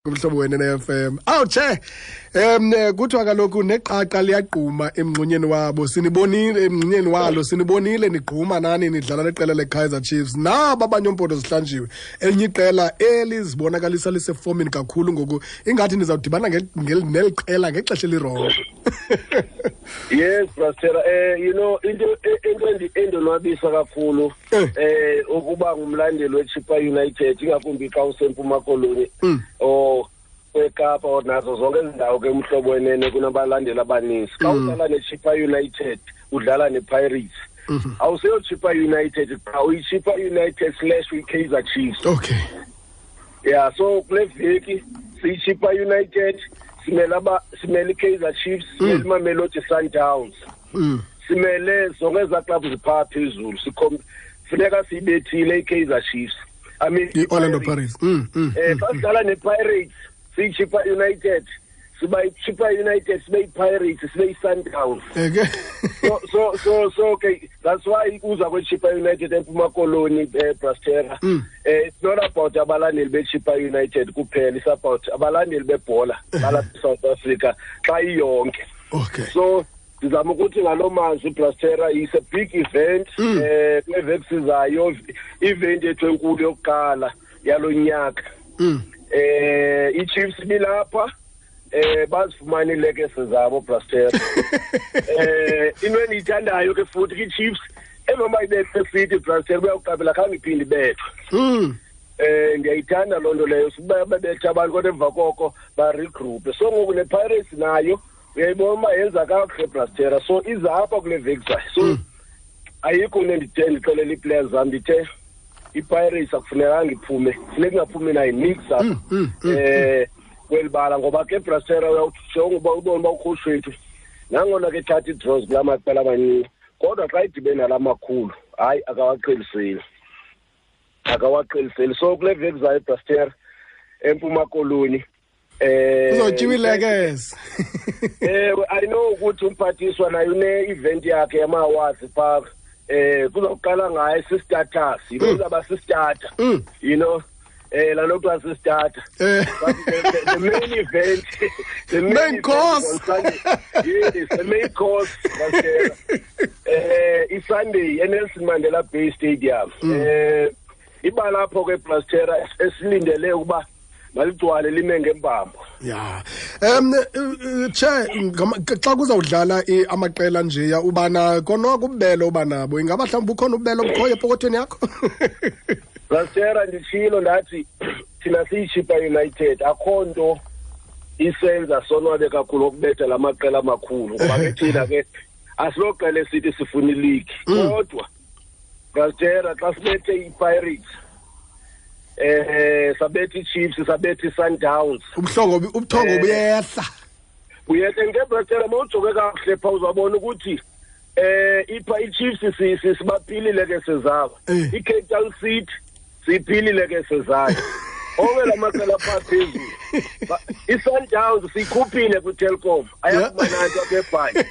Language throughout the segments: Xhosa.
Kumhlobo wena ne-FM. Awu che. Kuthiwa kaloku neqaqa liyagquma emngxunyeni wabo. Sinibonile emngxunyeni walo, sinibonile nigquma nani nidlala neqela leKaizer Chiefs. Naba abanye ompondo zihlanjiwe. Elinye iqela elizibonakalisa lisefomini kakhulu ngoku ingathi nizawudibana neli qela ngexesha elirongo. Yes, Pastor, you know into endonwabisa kakhulu ukuba ngumlandeli weChippa United, ingakumbi xa useMpuma Koloni or eKapa or nazo zonke izindawo ke umhlobo wenene kunabalandeli abaninzi. Xa udlala neChippa United udlala nePirates. Awuseyo Chippa United, qha uyiChippa United slash uyiKaizer Chiefs. Okay. Yeah, so kule veki siyiChippa United, simele iKaizer Chiefs, simele iMamelodi Sundowns. Simele zonke ezaa clubs ziphaa phezulu. Funeka siyibethile iKaizer Chiefs. I mean i-Orlando Pirates. Xa sidlala nePirates, siyiChippa United, siba yiChippa United, sibe yiPirates, sibe yiSundowns. Eke. So okay, that's why uza kweChippa United eMpuma Koloni, Brastera. It's not about abalandeli beChippa United kuphela, it's about abalandeli bebhola balapha eSouth Africa xa iyonke. Okay. So ndizama ukuthi ngaloo mazwi, Brastera, is a big event. Kule veki sizayo, event yethu enkulu yokuqala yalo nyaka. iChiefs bilapha, bazifumana iilekese zabo, Brastera. Into endiyithandayo ke futhi kwiChiefs, emva uba ibethwe City, Brastera, uyawuqaphela khange iphinde ibethwe. Ndiyayithanda loo nto leyo, siba bebetha abantu kodwa emva koko baregroupe. So ngoku nePirates nayo uyayibona uba yenza kakuhle, Brastera, so iza apha kule veki zayo. So ayikho into endithe ndixelela ii-players zam, ndithe iPirates akufunekanga iphume, funeka ingaphumi nayo nix apha kweli bala, ngoba ke Brastera uyawujonga uba ubone uba ucoach wethu nangona ke ethatha ii-draws kulaa maqela amancinci, kodwa xa idibene nala makhulu, hayi, akawaqheliseli, akawaqheliseli. So kule veki zayo, Brastera, eMpuma Koloni, Uzotyiwa ilekese. I know ukuthi umphathiswa naye une-event yakhe yama-awards phaa. Kuzawuqala ngaye si-status, you know, uzawuba si-starter. You know, laa nto kuthiwa si-starter. But the main event, the main Main event course. on Sunday. Yes, the main course, Brastera. I-Sunday, eNelson Mandela Bay Stadium. Iba lapho ke, Brastera, esilindele ukuba maligcwale lime ngembambo. Yeah. Che, xa kuzawudlala amaqela nje ya ubana konoko ububele oba nabo, ingaba mhlawumbi ukhona ububele obukhoyo epokothweni yakho? Brastera, nditshilo ndathi thina siyiChippa United, akho nto isenza sonwabe kakhulu ukubetha la maqela amakhulu, ngoba ke thina ke asiloqela esithi sifuna ileague. Kodwa Brastera, xa sibethe iPirates, sabetha iChiefs, sabetha iSundowns, Ubuthongo buyehla. Buyehla nge, Brastera. Mawujonge kakuhle phaa uzawubona ukuthi ipha iChiefs sibaphilile ke sezabo. iCape Town City siyiphilile ke sezayo. Onke la maqela apha phezulu, iSundowns siyikhuphile kwiTelkom, ayakuba nanto apha eBhayi,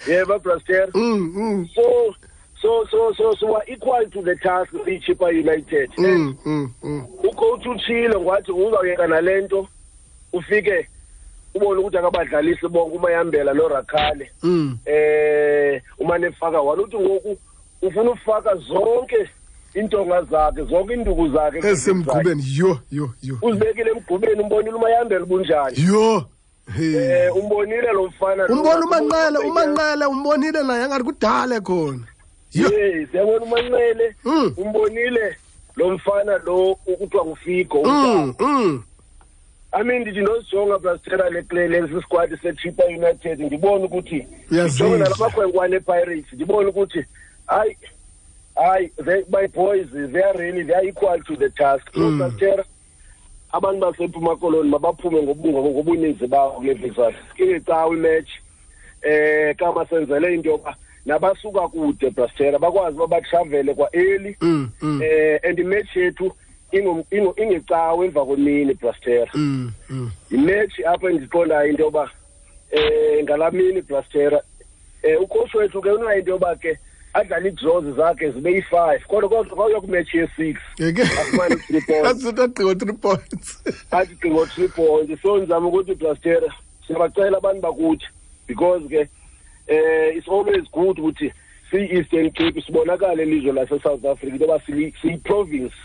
yeba, Brastera. So we are equal to the task, siyiChippa United. Ucoach utshilo ngathi uzawuyeka nale nto, ufike ubone ukuthi akabadlalisi bonke uMayambela noRakhale. Umane efaka one, uthi ngoku ufuna ufaka zonke iintonga zakhe, zonke iinduku zakhe esemgqubeni. Yho, yho, yho. Uzibekile emgqubeni. Umbonile uMayambela bunjani? Yho. Hey. Umbonile lo mfana lo. Umbona uManqele, uManqele umbonile naye angathi kudala khona. Yho. Yes, yabona uManqele. Umbonile lo mfana lo ukuthiwa nguFigo. I mean, ndithi ndozijonga, Brastera, lesi squad seChippa United, ndibone ukuthi Uyazidla. ndijonge nalamakhwenkwane ePirates, ndibone ukuthi hayi, hayi, my boys, they are really, they are equal to the task. So Brastera, abantu baseMpuma Koloni mabaphume ngobuninzi babo kule veki. Ingecawe imatch, kama senzele into yoba nabasuka kude, Brastera, bakwazi uba batravele kwa-early. And imatch yethu ingecawe emva kwemini, Brastera. Imatch apho endiqondayo into yoba ngalaa mini, Brastera, ucoach wethu ke unayo into yoba ke Adlale ii-draws zakhe zibe yi-5, kodwa kwawuya kwimatch ye-6 afumane 3 points. Athi 3 points. Athi ngo 3 points. So ndizama ukuthi, Blastera, siyabacela abantu bakuthi, because ke it's always good ukuthi siyi-Eastern Cape sibonakale elizwe lase-South Africa into yoba siyi-province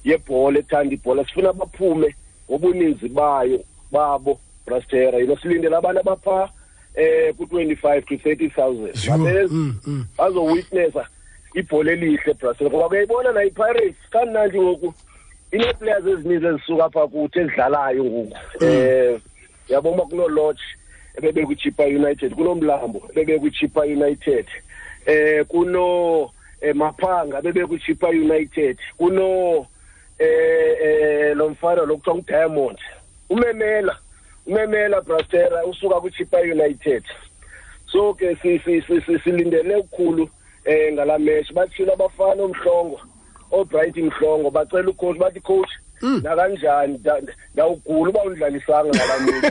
yebhola, ethanda ibhola. Sifuna baphume ngobuninzi bayo babo, Brastera. Silindele abantu abapha ku-25 to 30,000 babeza bazowitnessa ibhola elihle, Brastera, ngoba kuyayibona nayo iPirates kamnandi ngoku inee-players ezininzi ezisuka apha kuthi ezidlalayo ngoku. Yabona kuno-Lodge ebebe kwiChippa United, kunoMlambo ebebe kwiChippa United, kuno Maphanga bebe kwiChippa United, kuno lo mfana lo kuthiwa nguDiamond, umemela, Brastera, usuka kwiChippa United. So ke silindele ukukhulu ngala match. Bathile abafana omhlongo, oBright Mhlongo, bacela ucoach, bathi, "Coach, nakanjani ndawugula uba undlalisanga ngala mini."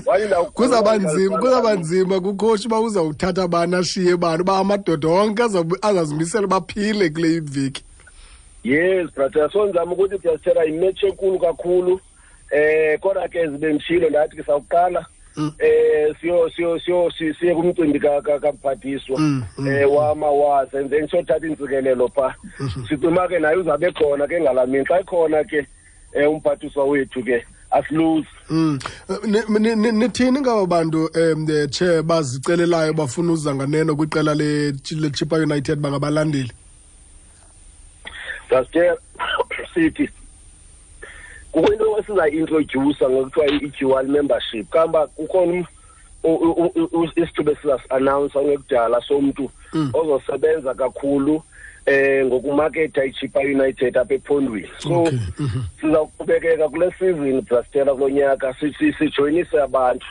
Wathi ndawugula. Kuzawuba nzima, kuzawuba nzima kucoach uba uzawuthatha bani ashiye bani, uba amadoda onke azazimisela baphile kule iveki. Yes, brother. So ndizama ukuthi, Brastera, imatch enkulu kakhulu. Kodwa ke zibe nditshilo, ndathi ke sawuqala siyo siye kumcimbi kamphathiswa wamawasa, and then siyothatha intsikelelo pha. Sicima ke naye uzabe khona ke ngalamini. Xa ikhona ke umphathiswa wethu ke asiluzi. Nithini ngaba bantu che bazicelelayo bafuna uza nganeno kwiqela le Chippa United bangabalandeli? Brastera, sithi kukho into esizayi-introduce ngokuthiwa i-dual membership. Kamba kukhona isithuba esizasi-announce ongekudala somntu ozosebenza kakhulu ngokumaketha iChippa United apha ephondweni. So sizawuqhubekeka kule season, Brastera, kulo nyaka sijoyinise abantu.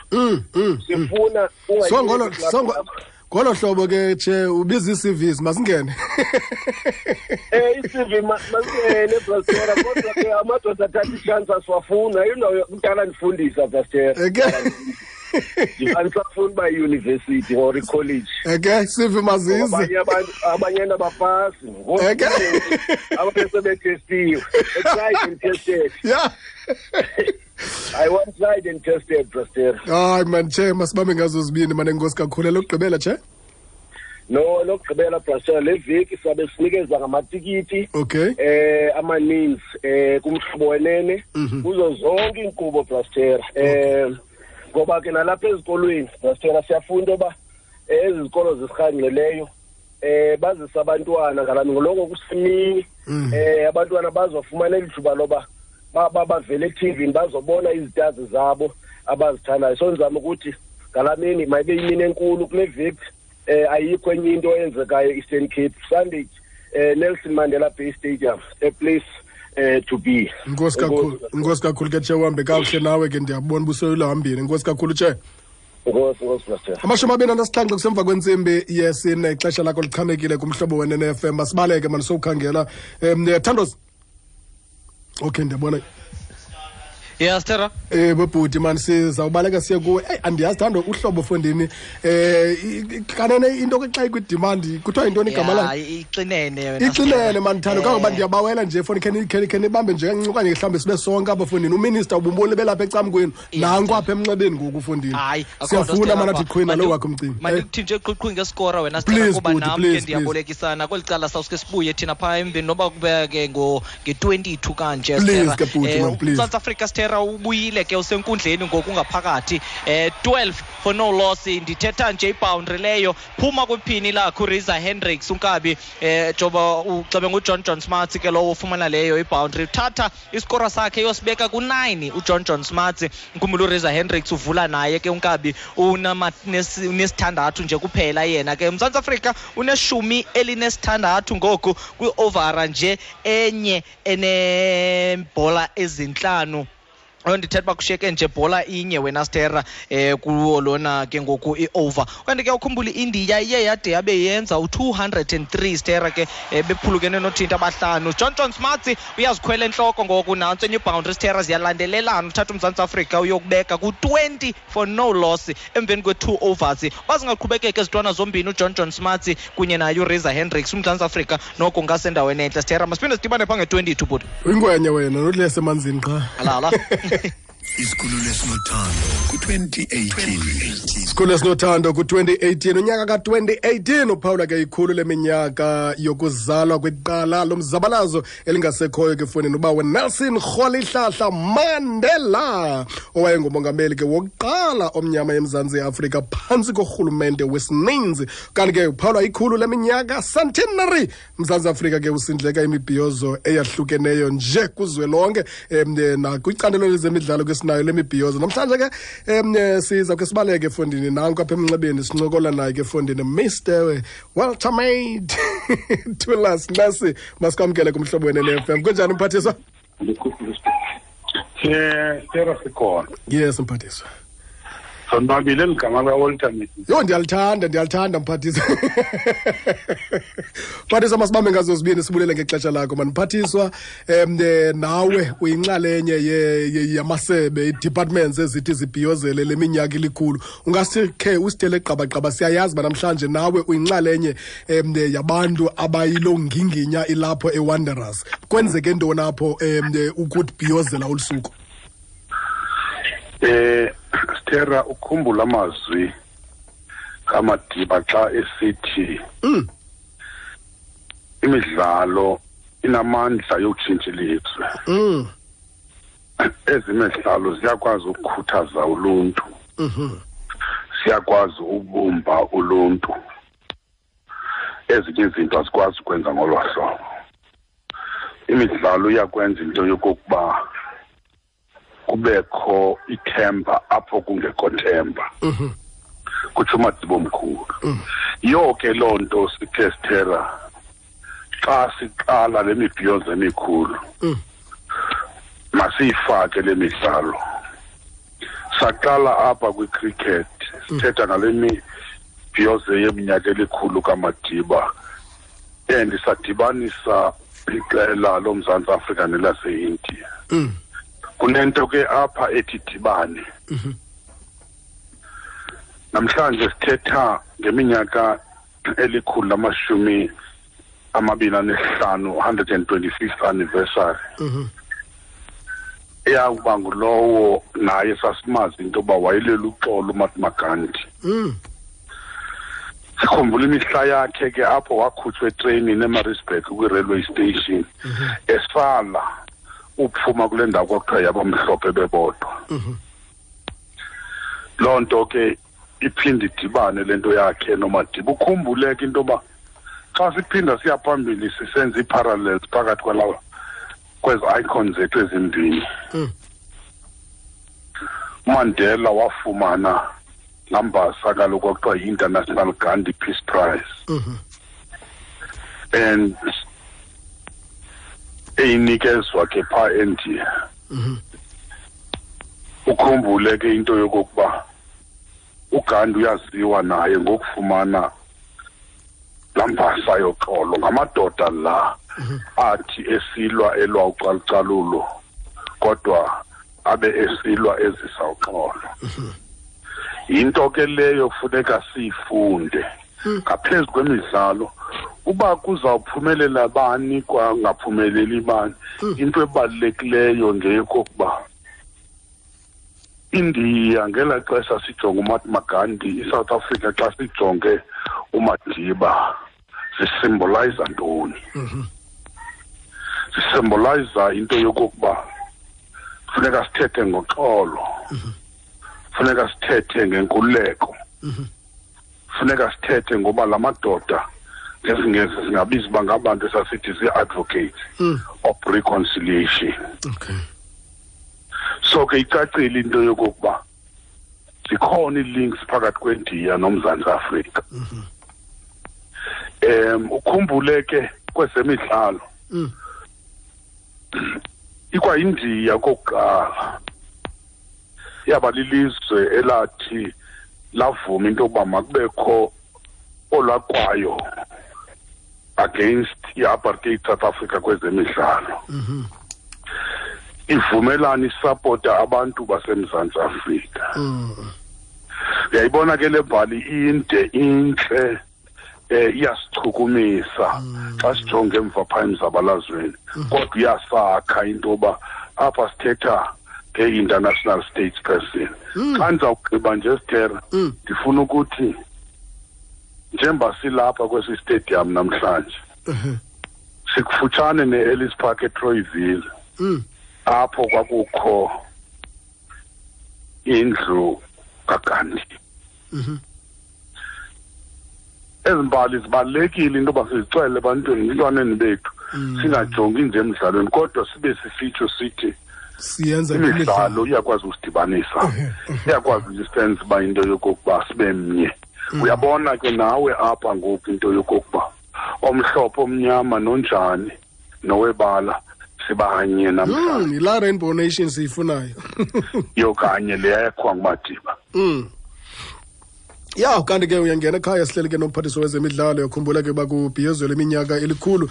Sifuna So ngolo so ngolo hlobo ke, che, ubiza ii-CVs, masingene. I-CV masingene, Brastera, kodwa ke amadoda athatha ichance asiwafuna. Indawo kudala ndifundisa, Brastera. Andisafuni uba yi-university or i-college. Eke CV mazize. Abanye abantu, abanye abapasi abanye sebetestiwe, tried and tested. I want tried and tested, Brastera. Hayi man, che, masibambe ngazo zibini mane. Enkosi kakhulu. Elokugqibela, che? No, lokugqibela, Brastera, le veki sabe sinikeza ngamatikiti amaninzi kumhlobo wenene kuzo zonke iinkqubo, Brastera, ngoba ke nalapha ezikolweni, Brastera, siyafunda uba ezi zikolo zisirhangqileyo bazisa abantwana ngalami ngoloko kusemini, abantwana bazofumana elithuba loba bavele eTV bazobona izitazi zabo abazithandayo. So ndizama ukuthi ngalamini mayibe imini enkulu kule veki. Ayikho enye into eyenzekayo Eastern Cape. Sunday, Nelson Mandela Bay Stadium, a place to be. Inkosi kakhulu, inkosi kakhulu ke, che, uhambe kakuhle nawe ke. Ndiyabona ubusoyilahambile. Inkosi kakhulu, che. Nkosi, nkosi, Pastor. 27 kusemva kwentsimbi yesine. Ixesha lakho lichanekile kumhlobo wenene FM. Masibaleke mani, sowukhangela Thandos. Okay, ndiyabona. Yes, Tera. Bobhuti man, sizawubaleka siye kuwe. Eyi, andiyazi, Thando, uhlobo fondini kanene into ke xa ikwi-demand kuthiwa yintoni igama layo? Ixinene yona. Ixinene man, Thando, kangoba ndiyabawela nje foni, khe nibambe nje kancinci okanye mhlawumbi sibe sonke apha fondini. Uminister ubumboni belapha ecamkwenu, nanku apha emnxebeni ngoku fondini. Hayi, akho nto, Siyafuna Stella, mana athi apha. qhwina lo wakho umcimbi. Mandikuthi nje qhuqhu ngeskora wena, Stella, Please, kuba bhuti, nam ke please, please. ndiyabolekisana kweli cala. Sawuske sibuye thina phaa emveni noba kube ke nge-22 kanje, Please Stella. ke bhuti, man, please. South Africa, Stella, ubuyile ke, usenkundleni ngoku ngaphakathi, 12 for no loss. Ndithetha nje iboundary leyo phuma kwiphini lakho uReza Hendricks unkabi, joba uxebe nguJohn John Smuts ke lowo ufumana leyo iboundary, uthatha isikora sakhe yosibeka ku-9 uJohn John Smuts. Nkhumbula uReza Hendricks uvula naye ke unkabi, unesithandathu nje kuphela yena ke. Mzantsi Afrika une-16 ngoku kwi-overa nje enye enebhola ezintlanu. Ndithetha uba kushiyeke nje bhola inye wena Stera kuwo lona ke ngoku i-over. Kanti ke ukhumbula i-India iye yade yabe yenza u-203 Stera ke bephulukene nothinta abahlanu. John John Smarts uyazikhwela entloko ngoku, nantso enye iboundary Stera, ziyalandelelana. Uthatha uMzantsi Afrika uyokubeka ku-20 for no loss emveni kwe-2 overs. Bazingaqhubekeka ezintwana zombini uJohn John Smarts kunye naye uReza Hendricks, uMzantsi Afrika noko ungasendaweni entle Stera. Masiphinde sidibane phaa nge-22 bhuti. Uyingwenye wena, nothi emanzini qha. Alala. Isikhululo esinothando ku-2018. Isikhululo esinothando ku-2018, unyaka ka-2018 uphawula ke ikhulu leminyaka yokuzalwa kweqala lomzabalazo elingasekhoyo ke fondini uba Nelson Rolihlahla Mandela, owayengumongameli ke wokuqala omnyama eMzantsi Afrika phantsi korhulumente wesininzi. Kanti ke uphawula ikhulu leminyaka, centenary, Mzantsi Afrika ke usindleka imibhiyozo eyahlukeneyo nje kuzwelonke, nakwicandelo lezemidlalo ke sinayo le mibhiyozo. Namhlanje ke siza ke sibaleke efondini, nanku apha emnxebeni sincokola naye ke efondini Mr Walter Made Thulas Nxesi. Masikwamkele kumhlobo wene FM. Kunjani mphathiswa? Stera, sikhona. Yes mphathiswa. Sonwabile ligama likaWalter Made. Yho, ndiyalithanda, ndiyalithanda mphathiswa. Mphathiswa, masibambe ngazo zibini, sibulele ngexesha lakho mani mphathiswa. Nawe uyinxalenye yamasebe, i-departments ezithi zibhiyozele le minyaka ilikhulu. Ungasikhe usithele qabaqaba, siyayazi uba namhlanje nawe uyinxalenye yabantu abayiloo nginginya ilapho eWanderers. Kwenzeke ntoni apho ukubhiyozela olu suku? Stera, ukhumbula amazwi kaMadiba xa esithi imidlalo inamandla yokutshintsha ilizwe. Ezimidlalo ziyakwazi ukukhuthaza uluntu. Siyakwazi ukubumba uluntu. Ezinye izinto azikwazi ukwenza ngolo hlobo. Imidlalo iyakwenza into yokokuba kubekho ithemba apho kungekho themba. Kutsho uMadiba omkhulu. Yonke loo nto sithe Stera xa siqala le mibhiyozo emikhulu, masiyifake le midlalo. Saqala apha kwi-cricket, sithetha ngale mibhiyozo yeminyaka elikhulu kaMadiba, and sadibanisa iqela loMzantsi Afrika nelase-India. Kunento ke apha ethi dibane. Namhlanje sithetha ngeminyaka 125, 125th anniversary. Eyakuba ngulowo naye sasimazi into yoba wayelela uxolo uMahatma Gandhi. Sikhumbula imihla yakhe ke apho wakhutshwa etreyinini eMaritzburg kwi-railway station, esala uphuma kule ndawo kwakuthiwa yabamhlophe bebodwa. Loo nto ke iphinde idibane le nto yakhe noMadiba. Ukhumbule ke into yoba xa siphinda siya phambili sisenza ii-parallels phakathi kwalawa kwezi icons zethu ezimbini. uMandela wafumana laa mbasa kaloku kwakuthiwa yi-International Gandhi Peace Prize. And eyinikezwa ke phaa eNdiya. Ukhumbule ke into yokokuba uGandhi uyaziwa naye ngokufumana laa mbasa yoxolo. Ngamadoda la athi esilwa elwa ucalucalulo, kodwa abe esilwa ezisa uxolo. Yinto ke leyo funeka siyifunde ngaphezu kwemidlalo. Uba kuzawuphumelela bani kwangaphumeleli bani, into ebalulekileyo ngeyokokuba India ngelaa xesha sijonge uMahatma Gandhi, iSouth Africa xa sijonge uMadiba, zisymbolize ntoni? Zisymbolize into yokokuba funeka sithethe ngoxolo, funeka sithethe ngenkululeko, funeka sithethe ngoba la madoda ngesiNgesi singabiza uba ngabantu esasithi zii-advocates of reconciliation. So ke icacile into yokokuba zikhona ii-links phakathi kweNdiya noMzantsi Afrika. Ukhumbule ke kwezemidlalo, ikwayindiya kokuqala Yaba lilizwe elathi lavuma into yokuba makubekho olwakwayo against i-apartheid South Africa kwezemidlalo. Ivumelana isapota abantu baseMzantsi Afrika. Uyayibona ke le mbali inde, intle, iyasichukumisa xa sijonge emva phaa emzabalazweni, kodwa iyasakha into yoba apha sithetha nge-international states person. Xa ndizawugqiba nje, Sithera, ndifuna ukuthi njengoba silapha kwesi stadium namhlanje, sikufutshane ne-Ellis Park eTroyville, apho kwakukho indlu kaGandhi. Ezi mbali zibalulekile into yoba sizixele ebantwini, ebantwaneni bethu, singajongi nje emdlalweni, kodwa sibe sisitsho sithi siyenza imidlalo iyakwazi usidibanisa, iyakwazi usenza uba into yokokuba sibe mnye. Uyabona ke nawe apha ngoku into yokokuba omhlophe, omnyama, nonjani, nowebala, sibanye namhlanje. Yilaa Rainbow Nation siyifunayo. Yokanye leyakhiwa nguMadiba. Ya, kanti ke uyangena ekhaya, sihleli ke nomphathiswa wezemidlalo. Yakhumbula ke uba kubhiyozelwa iminyaka elikhulu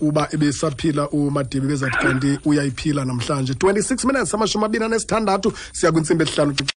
uba ebesaphila uMadiba, bezathi kanti uyayiphila namhlanje. 26 minutes, 26 siya kwintsimbi 5.